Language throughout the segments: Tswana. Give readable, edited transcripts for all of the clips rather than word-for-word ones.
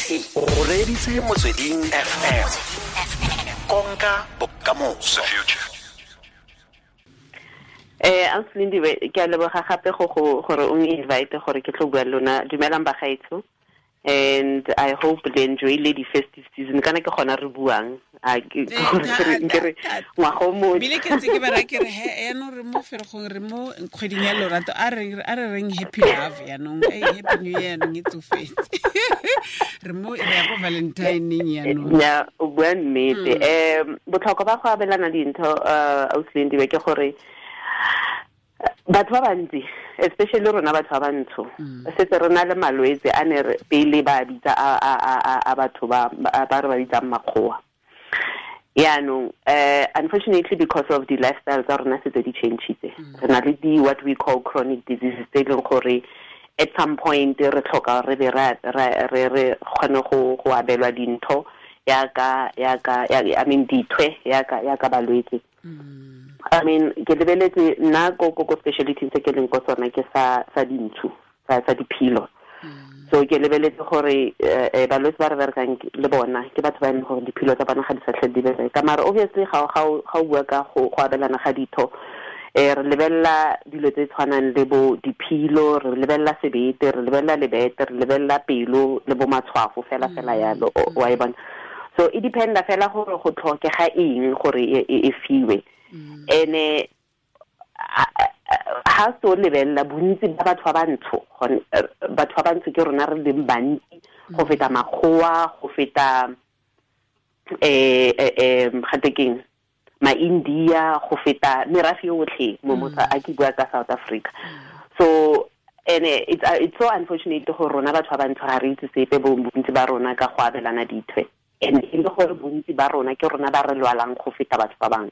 O reditse Motsweding FM, konka bokamoso. Ausi Lindiwe, ke a leboga gape go gore o invite gore ke tlo bua le lona. Dumelang bagaetsho, and I hope le enjoy le di festive season. Kana ke gona re buang, a ke gore re ngwaga o mošwa. Bile ke ntse ke ba raya ke re, he, yaanong re mo Ferikgong, re mo kgweding ya lorato, a re reng happy love yaanong, happy new year yaanong e tsofetse, re mo re ya ko Valentineng yaanong. Ya, o bua nnete. Botlhokwa ba go abelana dintho, Ausi Lindiwe, ke gore batho ba bantsi, especially rona batho ba bantsho, setse re na le malwetse a ne re pele ba bitsa a batho ba re ba bitsang makgowa. Yaanong unfortunately, because of the lifestyle tsa rona setse di changeitse, re na le di what we call chronic diseases tse e leng gore at some point re tlhoka re be re kgone go abelwa dintho yaka I mean dithwe yaka balwetse. I mean, ke lebeletse nna ko specialty tse ke leng ko tsona ke sa dintshu, sa diphilo. So ke lebeletse gore balwetse ba re berekang le bona ke batho ba e leng gore diphilo tsa bona ga di sa tlhole di bereka. Mara obviously ga o bua ka go abelana ga ditho, re lebelela dilo tse tshwanang le bo diphilo, re lebelela sebete, re lebelela lebete, re lebelela pelo le bo matshwafo fela fela yalo, wa e bona. So e dependa fela gore go tlhokega eng gore e fiwe. Ene ha se o lebelela bontsi ba batho ba bantsho, batho ba bantsho ke rona re leng bantsi go feta makgowa, go feta gate keng, ma-India, go feta merafe yotlhe mo a ke bua ka South Africa. So ene it's so unfortunate gore rona batho ba bantsho ga re itse sepe, bontsi ba rona, ka go abelana dithwe, and e le gore bontsi ba rona ke rona ba re lwalang go feta batho ba bangwe.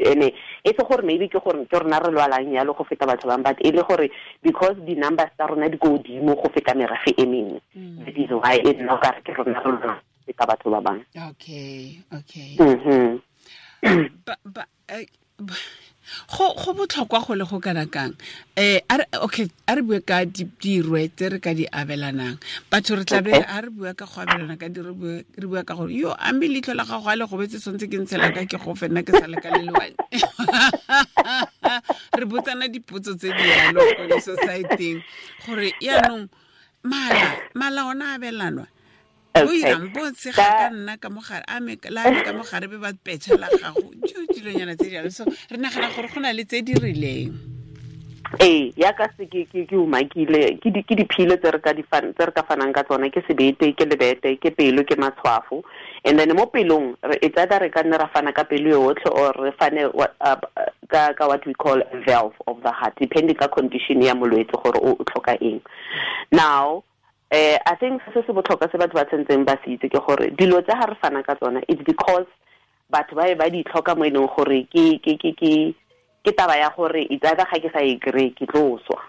Ene e se gore maybe ke gore ke rona re lwalang yalo go feta batho ba bangwe, but e le gore because di-numbers tsa rona di ko godimo go feta merafe e mengwe, that is why e nna okare ke rona re lwalang go feta batho ba bangwe. okay Ba, go botlhokwa go le go kana kang? Okay, a re bue ka dirwe tse re ka di abelanang batho. Re tlabe a re bua ka go abelana ka di, re bua ka gore yo ambe leitlho la gago a le gobetse, tshwanetse ke ntshela ka ke go fenna ke sa le ka le lewane. Re botsana dipotso tse di yalo ko di-society-eng gore yaanong mala ona abelanwa o irang bo tshega ka nna ka mogare a me la me ka mogare be ba petšha la gago jo dilonyana tse jalo. So re nagana gore go na le tse di rileng. Ee, yaka se ke umakile, ke diphilo tse re ka di tse re ka fanang ka tsona ke sebete, ke lebete, ke pelo, ke matshwafo. And then mo pelong it's either re ka nne ra fana ka pelo yotlhe or re fane ka what we call a valve of the heart, depending ka condition ya molwetse gore o tlhoka eng. Now I think se se botlhokwa se batho ba tshwanetseng ba se itse ke gore dilo tse ga re fana ka tsona, it's because batho ba be ba di tlhoka mo e leng gore ke taba ya gore it's either ga ke sa e kry ke tlo swa.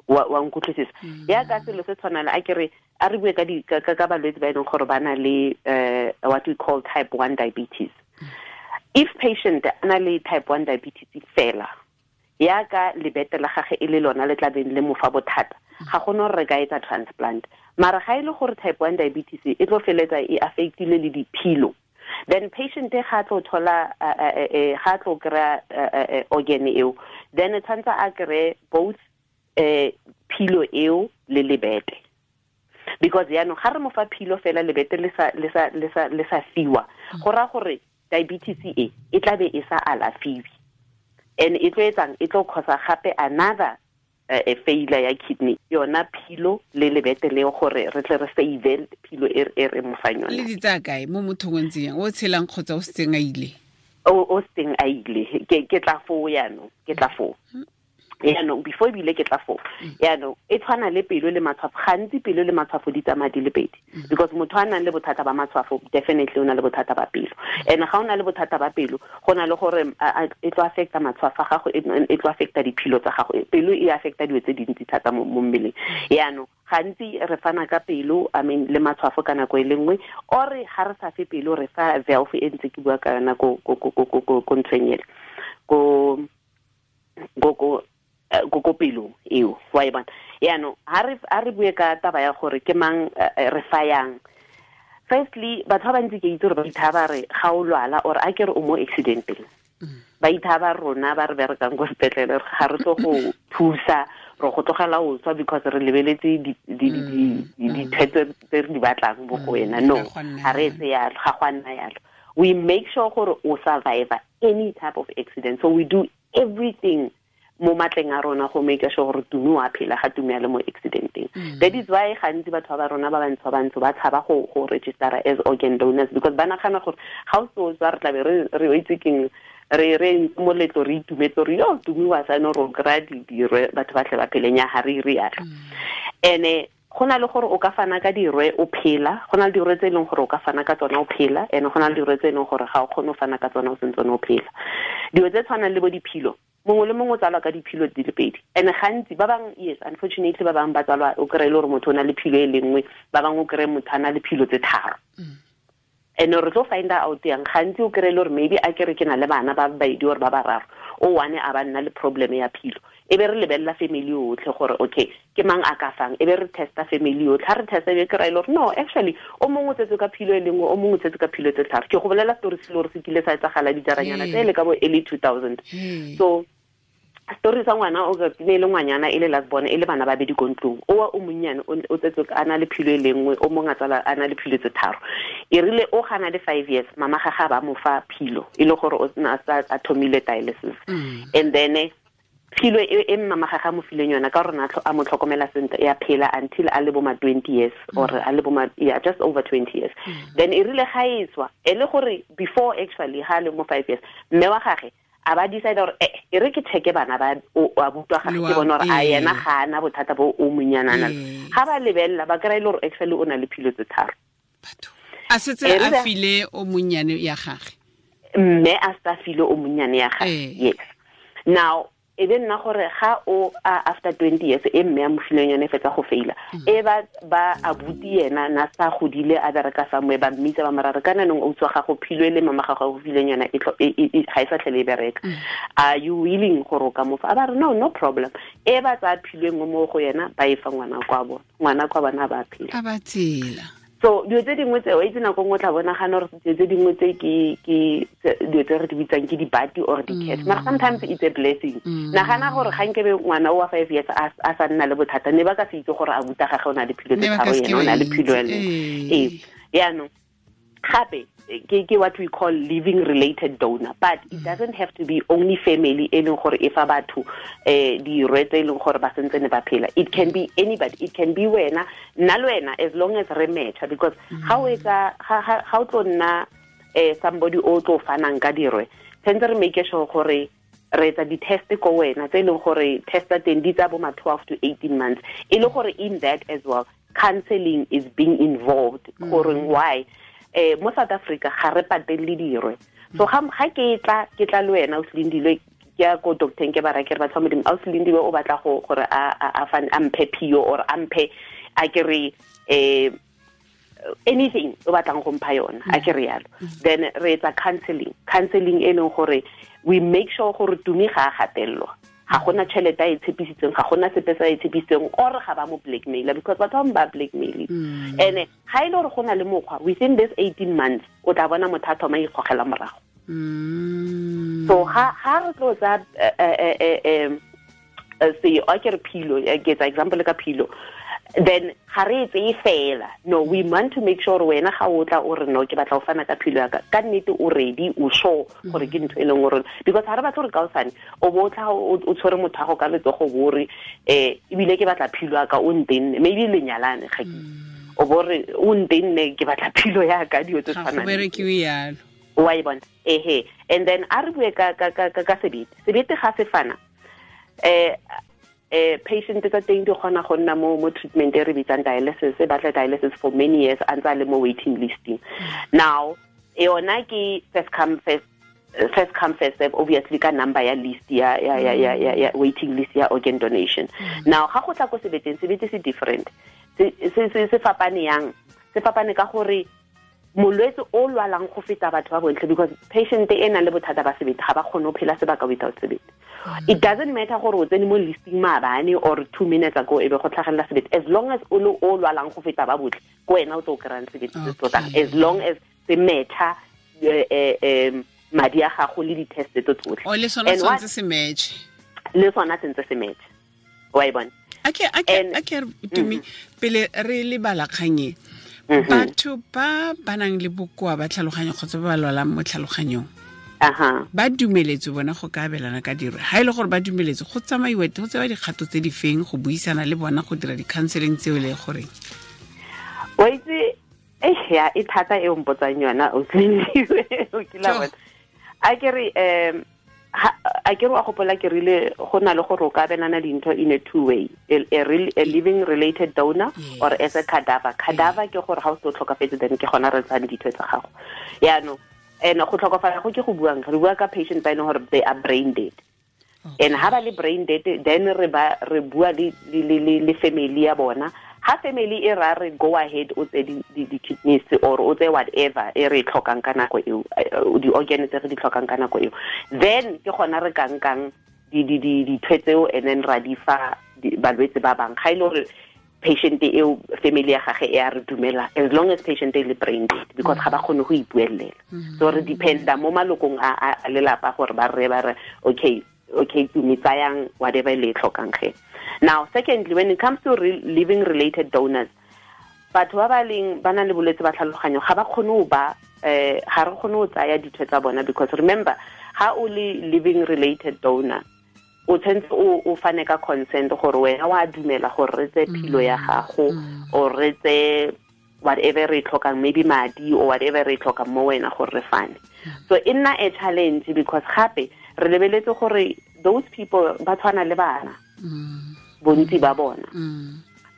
Wa nkutlwisisa? Ya ka selo se tshwana le a ke re a re bue ka di ka balwetse ba e leng gore ba na le what we call type 1 diabetes. If patient a na le type 1 diabetes fela, ya ka lebete la gage e le lona le tlabeng le mo fa bothata, ga gona gore re ka etsa transplant. Mara ga e le gore type 1 diabetes e tlo feletsa e affectile le diphilo, then patient ga tlo thola ga tlo kry-a organ eo, then tshwanetse a kry both philo eo le lebete, because yaanong ga re mo fa philo fela, lebete le sa fiwa, go raya gore diabetes e e tla be e sa alafiwe, and e tlo etsang, e tlo causa gape another failure ya kidney. Yona philo le lebete leo, gore re tle re save philo e re mo fang yona. Le di tsaya kae mo mothong o ntseng yang o tshelang kgotsa o setseng a ile? O seng a ile. Ke tla foo yaanong, ke tla foo yaanong. Before ebile ke tla foo yaanong, e tshwana le pelo le matshwafo. Gantsi pelo le matshwafo di tsamaya di le pedi, because motho a nang le bothata ba matshwafo definitely o na le bothata ba pelo, and ga o na le bothata ba pelo, go na le gore e tlo affecta matshwafo a gago, e tlo affecta diphilo tsa gago. Pelo e affecta dilo tse dintsi thata mo mmeleng. Yaanong gantsi re fana ka pelo, I mean, le matshwafo ka nako e le nngwe, or ga re sa fe pelo, re fa valve e ntse ke bua ka yona ko nthong ele, ko ko pelong eo wa e bona. Yaanong ha re bue ka taba ya gore ke mang re fayang. Firstly, batho ba bantsi ke itse gore ba ithaba re ga o lwala or a ke re o mo accidenteng. Ba ithaba rona ba re berekang ko sepetlele ga re tlo go thusa re go tlogela o tswa because re lebeletse ditshwetso tse re di batlang mo go wena. No, ga re etse yalo, ga go a nna yalo. We make sure gore o survive any type of accident. So we do everything mo matleng a rona go make sure gore Tumi wa phela ga Tumi a le mo accidenteng. That is why gantsi batho ba rona ba bantsho ba tshaba go register as organ donors because ba nagana gore ga o so tswa re tlabe re itse keng re moletlo re itumetse re yo Tumi wa sane ro kry-a dirwe batho ba tle ba pheleng ya ga re ire yalo. Ene go na le gore o ka fana ka dirwe o phela, go na le dirwe tse e leng gore o ka fana ka tsona o phela, ene go na le dirwe tse e leng gore ga o kgone go fana ka tsona o sentse o phela. Dilo tse tshwanang le bo diphilo, mongwe le mongwe o tsalwa ka diphilo di le pedi. And gantsi ba bang, yes, unfortunately ba bang ba tsalwa o kry-e le gore motho o na le philo e le nngwe, ba bangwe o kry-e motho a na le philo tse tharo. And re tlo find out yang gantsi o kry-e le gore maybe a kere ke na le bana ba babedi or ba bararo, o one a ba nna le problem ya philo. E be re lebelela family yotlhe gore okay ke mang a ka fang, e be re testa family yotlhe. Ha re testa e be kry-e le gore no, actually o mongwe o tsetse ka philo e le nngwe, o mongwe o tsetse ka philo tse tharo. Ke go bolela story se le gore se kile sa etsagala dijaranyana tse le ka bo early 2000. So story sa ngwana o ne le ngwanyana e le last born e le bana ba bedi ko ntlong, o wa o monnyane o tsetse a na le philo e le nngwe, o mongwe a tsala a na le philo tse tharo. E rile o gana le 5 years, mama ga ga ba mo fa philo e le gore o na a thomile dialysis. And then philo e mama ga ga mo fileng yona ka rona a mo tlhokomela sentle ya phela until a le bo ma 20 years or a le bo ma, yeah, just over 20 years. Then e rile ga e tswa e le gore before actually ha le mo 5 years, mme wa gagwe a ba decide gore e re ke checke bana ba o a butwa ga ke bona gore a yena ga ana bothata bo o monyanana. Ga ba lebella ba kry-e le gore actually o na le philo tse tharo. Batho a setse a file o monnyane ya gagwe, mme a sa file o monnyane ya gagwe. Yes. Now e be nna gore ga o after 20 years e mme a mo fileng yone fetsa go faila, e ba abuti yena na sa godile a bereka somewhere, ba mmitsa ba marare kana nong o tswa ga go philo le mama ga go fileng yona e ga e sa tlhele e bereka. Are you willing gore o ka mo fa? A ba re no, no problem. E ba tsa philo engwe mo go yena ba e fa ngwana kwa bona, ngwana kwa bona ba phela, a ba tsela. So dilo tse dingwe tse o itse nako nngwe o tla bonagana gore dilo tse dingwe tse ke dilo tse re di bitsang ke dibati or di-curse, mara sometimes it's a blessing. Nagana gore ga nkebe ngwana o wa 5 years a sa nna le bothata, ne ba ka se itse gore a buta gagwe o na le philo tse tharo, yena o na le philo ya leng. Ee, yaanong gape ke what we call living related donor, but it doesn't have to be only family e leng gore e fa batho dirwe tse e leng gore ba sentse ne ba phela. It can be anybody, it can be wena, nna le wena, as long as re matcha, because ga o etsa ga o tlo nna somebody o tlo fanang ka dirwe, tshwanetse re make sure gore re etsa di-test ko wena tse e leng gore test tsa teng di tsa bo ma 12 to 18 months, e le gore in that as well counseling is being involved. Gore why mo South Africa ga re patelle dirwe. So ga ke tla le wena o Silindilwe, ke ya ko doctor ke ba ra ke re batho ba Modimo, a o Silindilwe o batla go gore a mphe phio or a mphe a ke re anything o batlang go mpha yona, a ke re yalo. Then re etsa counseling e leng gore we make sure gore Tumi ga a gatelelwa, ga gona tšhelete a e tshepisitseng, ga gona sepe se a e tshepisitseng, or ga ba mo blackmaila, because batho ba blackmail. And ga e le gore go na le mokgwa within this 18 months o tla bona motho a thoma ikgogela morago. So ga re tlo tsa se a ke re philo, ke etsa example ka philo, then ga re e tseye fela. No, we want to make sure wena ga o tla o re no ke batla go fana ka philo ya ka, ka nnete o ready, o sure gore ke ntho e leng gore, because ga re batla gore kaosane o bo tla o tshwere motho wa go ka letsogo bo re ebile ke batla philo ya ka o ntenne, maybe lenyalane ga ke o bo re o ntenne ke batla philo ya ka, dilo tse tshwanang. Ga go berekiwe yalo. Wa e bona? Ehe. And then a re bue ka sebete. Sebete ga se fana patient tsa teng di kgona go nna mo treatment e re bitsang dialysis, e batla dialysis for many years a ntse a le mo waiting listing. Now yona ke first come first serve, obviously ka number ya list ya waiting list ya organ donation. Now ga go tla ko sebeteng, sebete se different, se fapane yang, se fapane ka gore Molwetse o lwalang go feta batho ba bontle, because patient e nang le bothata ba sebete ga ba kgone go phela sebaka without sebete. It doesn't matter gore o tsene mo listing maabane or 2 minutes ago e be go tlhagelela sebete, as long as o le o lwalang go feta ba botlhe, ko wena o tlo kry-ang sebete se tlotlang, as long as se matcha madi a gago le di-test tse tsotlhe. O le sona tshwanetse se match. Le sona sentse se match. Wa e bona? Ake Tumi, pele re lebala kgang e, batho ba ba nang le bokoa ba tlhaloganyo kgotsa ba ba lwalang mo tlhaloganyong, ba dumeletse bona go ka abelana ka diro. Ha e le gore ba dumeletse, go tsamaiwa go tsewa dikgato tse di feng go buisana le bona, go dira di-counseling tseo le goreng? Wa itse, ya e thata e o mpotsang yona, o kila bona. A ke re a ke re wa gopola ke rile go na le gore o ka abelana dintho in a two way, a living related donor, yes, or as a cadaver. Cadaver ke gore ga o se o tlhokafetse, then ke gona re tsang ditho tsa gago. Yaanong and go tlhokofala go ke go buang, re bua ka patient ba e leng gore they are brain dead. And ha ba le brain dead, then re bua le family ya bona. Ha family e ra re go ahead o tse di kidneys or o tse whatever e re tlhokang ka nako eo, di organ tse re di tlhokang ka nako eo, then ke gona re kankang di tseo and then ra di fa balwetse ba bang. Ga ile gore patient eo family ya gage e a re dumela, as long as patient e le brain dead, because ga ba kgone go ipuelela. So re dependa mo malokong a lelapa gore ba re okay Tumi, tsayang whatever le tlhokang ge. Now, secondly, when it comes to living related donors, batho ba ba leng ba nang le bolwetse ba tlhaloganyo ga ba kgone go ba ga re kgone go tsaya ditho tsa bona, because remember, ha o le living related donor, o tshwanetse o fane ka consent gore wena wa dumela gore re tse philo ya gago or re tse whatever re tlhokang, maybe madi or whatever re tlhokang mo wena gore re fane. So e nna a challenge, because gape re lebeletse gore those people ba tshwana le bana, bontsi ba bona.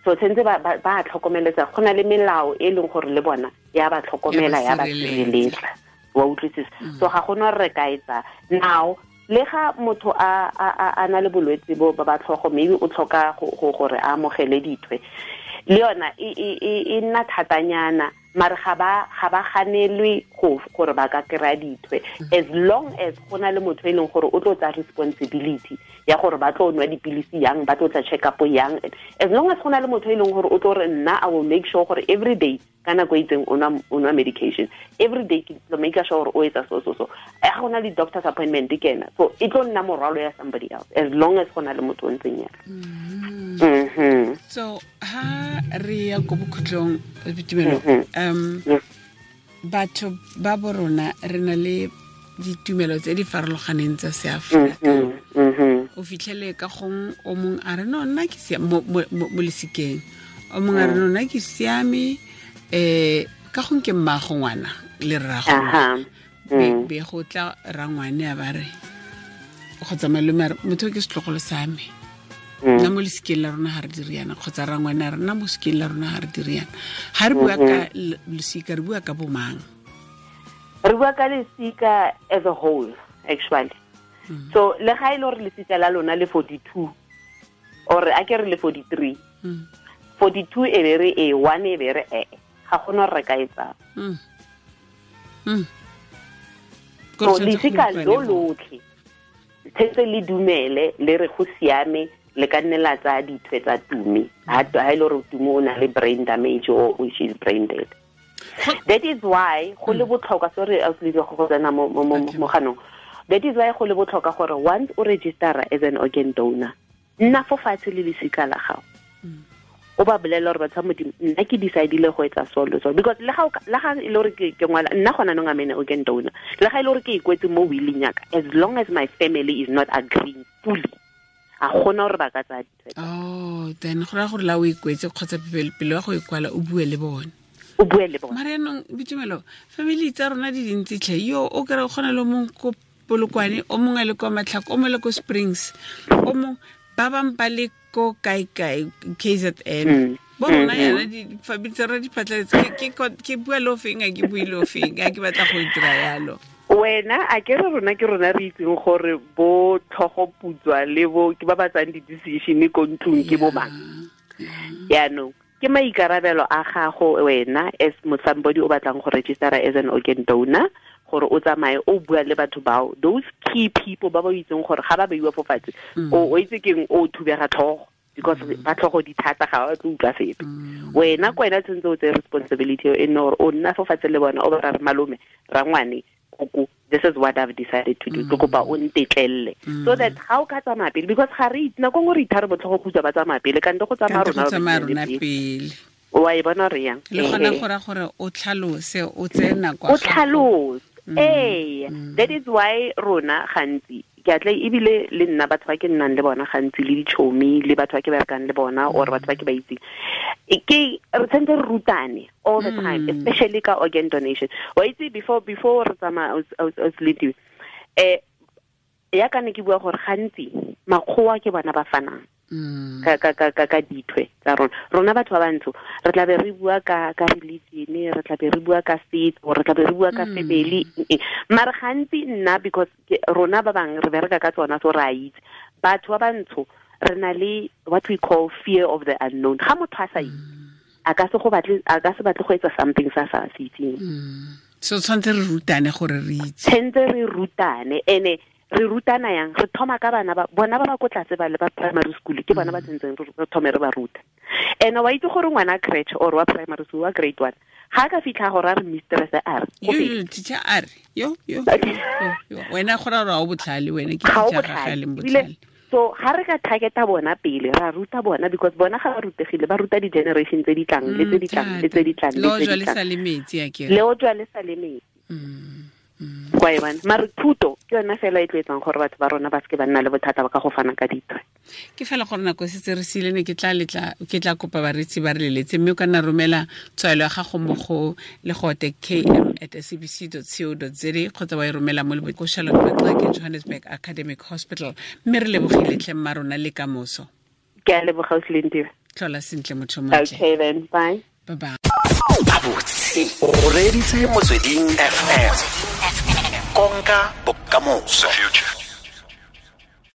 So tshwanetse ba tlhokomeletsa, go na le melao e leng gore le bona ya ba tlhokomela, ya ba sireletsa, wa utlwisisa. So ga gona re ka etsa now. Le ga motho a na le bolwetse bo ba tlhogo, maybe o tlhoka gore a amogele dithwe, le yona e nna thatanyana, mare ga ba ganelwe gore ba ka kry-a dithwe, as long as go na le motho e leng gore o tlo tsaya responsibility ya gore ba tlo nwa dipilisi yang, ba tlo tla check up yang. As long as go na le motho e leng gore o tlo re nna I will make sure gore every day ka nako e itseng o nwa medication, every day ke tlo make sure gore o etsa so so so, ga go na le doctor's appointment ke ena, so e tlo nna morwalo ya somebody else, as long as go na le motho o ntseng yalo. So ha re ya ko bokhutlong, Boitumelo, batho ba borona re na le ditumelo tse di farologaneng tsa seAfrika. O fitlhele ka gong o mong a re no nna ke mo lesikeng, o mong a re no nna ke siame, ka gong ke mmago ngwana le rrago, be go tla rangwane a ba re kgotsa malome a re motho ke setlogolo sa me, nna mo lesikeng la rona ga re dire yana, kgotsa rangwane a re nna mo lesikeng la rona ga re dire yana. Ga re bua ka losika, re bua ka bomang? Re bua ka lesika as a whole, actually. So le ga e le gore lesika la lona le 42 or a ke re le 43, 42 e be re e 1 e be re e, ga gona re ka etsang. So lesika lo lotlhe tshetse le dumele le re go siame, le ka nne la tsaya dithwe tsa Tumi, ha e le gore Tumi o na le brain damage or which is brain dead. That is why go le botlhokwa, sorry go tsena mo ganong. That is why go le botlhokwa gore once o register as an organ donor, nna fo fatshe le lesika la gago, o ba bolela gore batho ba Modimo, nna ke decidile go etsa so le so, because le ga e le gore ke ngwala nna gona nong I'm an organ donor, le ga e le gore ke ikwetse mo willing yaka, as long as my family is not agreeing fully, a gona gore ba ka tsaya ditshwetso. Oh, then go raya gore la o ikwetse kgotsa pele wa go ikwala o bue le bone. O bue le bone. Mare yanong Boitumelo, family tsa rona di dintsi tlhe, yo o kry o kgona le mongwe ko Polokwane, o mongwe a le kwa Matlhako, o mongwe le ko Springs, o mongwe ba bangwe ba le ko kae-kae KZN. Bo rona yana di-family tsa rona di phatlaletse, ke bua le ofeng, a ke bue le ofeng, a ke batla go dira yalo. Wena a ke re rona ke rona re itseng gore bo tlhogo putswa le bo ke ba ba tsang di-decision ko ntlong ke bo mang. Yaanong Ke maikarabelo a gago wena as somebody o batlang go registera as an organ donor, gore o tsamaye o bua le batho bao, those key people ba ba itseng gore ga ba beiwa fo fatshe, o itse keng, o thubega tlhogo, because ba tlhogo di thata, ga ba tlo utlwa sepe. Wena ko wena tshwanetse o tseye responsibility e nne gore o nna fo fatshe le bona, o ba ra re malome, rangwane, koko, this is what I've decided to do, ke kopa o ntetlelle, so that ga o ka tsamaya pele, because ga re itse nako nngwe re ithare botlhogo khutsa ba tsamaya pele, kante go tsamaya rona pele. Wa e bona re yang le gona go ra gore o tlhalose, o tseye nako, o tlhalose. Ee, that is why rona gantsi ke atle ebile le nna batho ba ke nnang le bona gantsi, le ditšhomi, le batho ba ke berekang le bona, or batho ba ke ba itseng, ke re tshwanetse re rutane all the time, especially ka organ donation. Wa itse, before re tsamaya, o ya ka ne ke bua gore gantsi makgowa ke bona ba fanang ka ka ka ka ka dithwe tsa rona. Rona batho ba bantsho re tla be re bua ka religion, re tla be re bua ka setso, re tla be re bua ka family, mara gantsi nna because rona ba bang re bereka ka tsona, so re a itse batho ba bantsho re na le what we call fear of the unknown. Ga motho a sa itse, a ka se batle go etsa something sa sa se itseng. So tshwanetse re rutane gore re itse, tshwanetse re rutane. Ene re rutana yang? Re thoma ka bana ba bona ba ba ko tlase ba le ba primary school, ke bona ba tsentseng re thome re ba ruta. Ene wa itse gore ngwana crèche or wa primary school wa grade 1 ga ka fitlha gore a re mistress a re yo teacher a re yo yo wena gore ra o botlhale, wena ke teacher ga ga le botlhale. So ga re ka targeta bona pele, ra ruta bona, because bona ga ba rutegile, ba ruta di-generation tse di tlang le tse di tlang le tse di tlang le tse di tlang. Le o jwa le sa le metsi. Kwa e bona. Mare thuto ke yona fela e tlo etsang gore batho ba rona ba seke ba nna le bothata ba ka go fana ka dithwe. Ke fela gore nako e setse re siile, ne ke tla kopa bareetsi ba re leletse, mme o ka nna romela tshwaelo ya gago mo go legote km@sabc.co.za kgotsa wa e romela mo ko Charlotte Maxeke Johannesburg Academic Hospital. Mme re lebogile tlhe mma rona le kamoso. Ke a leboga, Ausi. Tlhola sentle motho montle. Okay then, bye. Bye bye. Abotse o reditse Motsweding FM, konka bokamoso.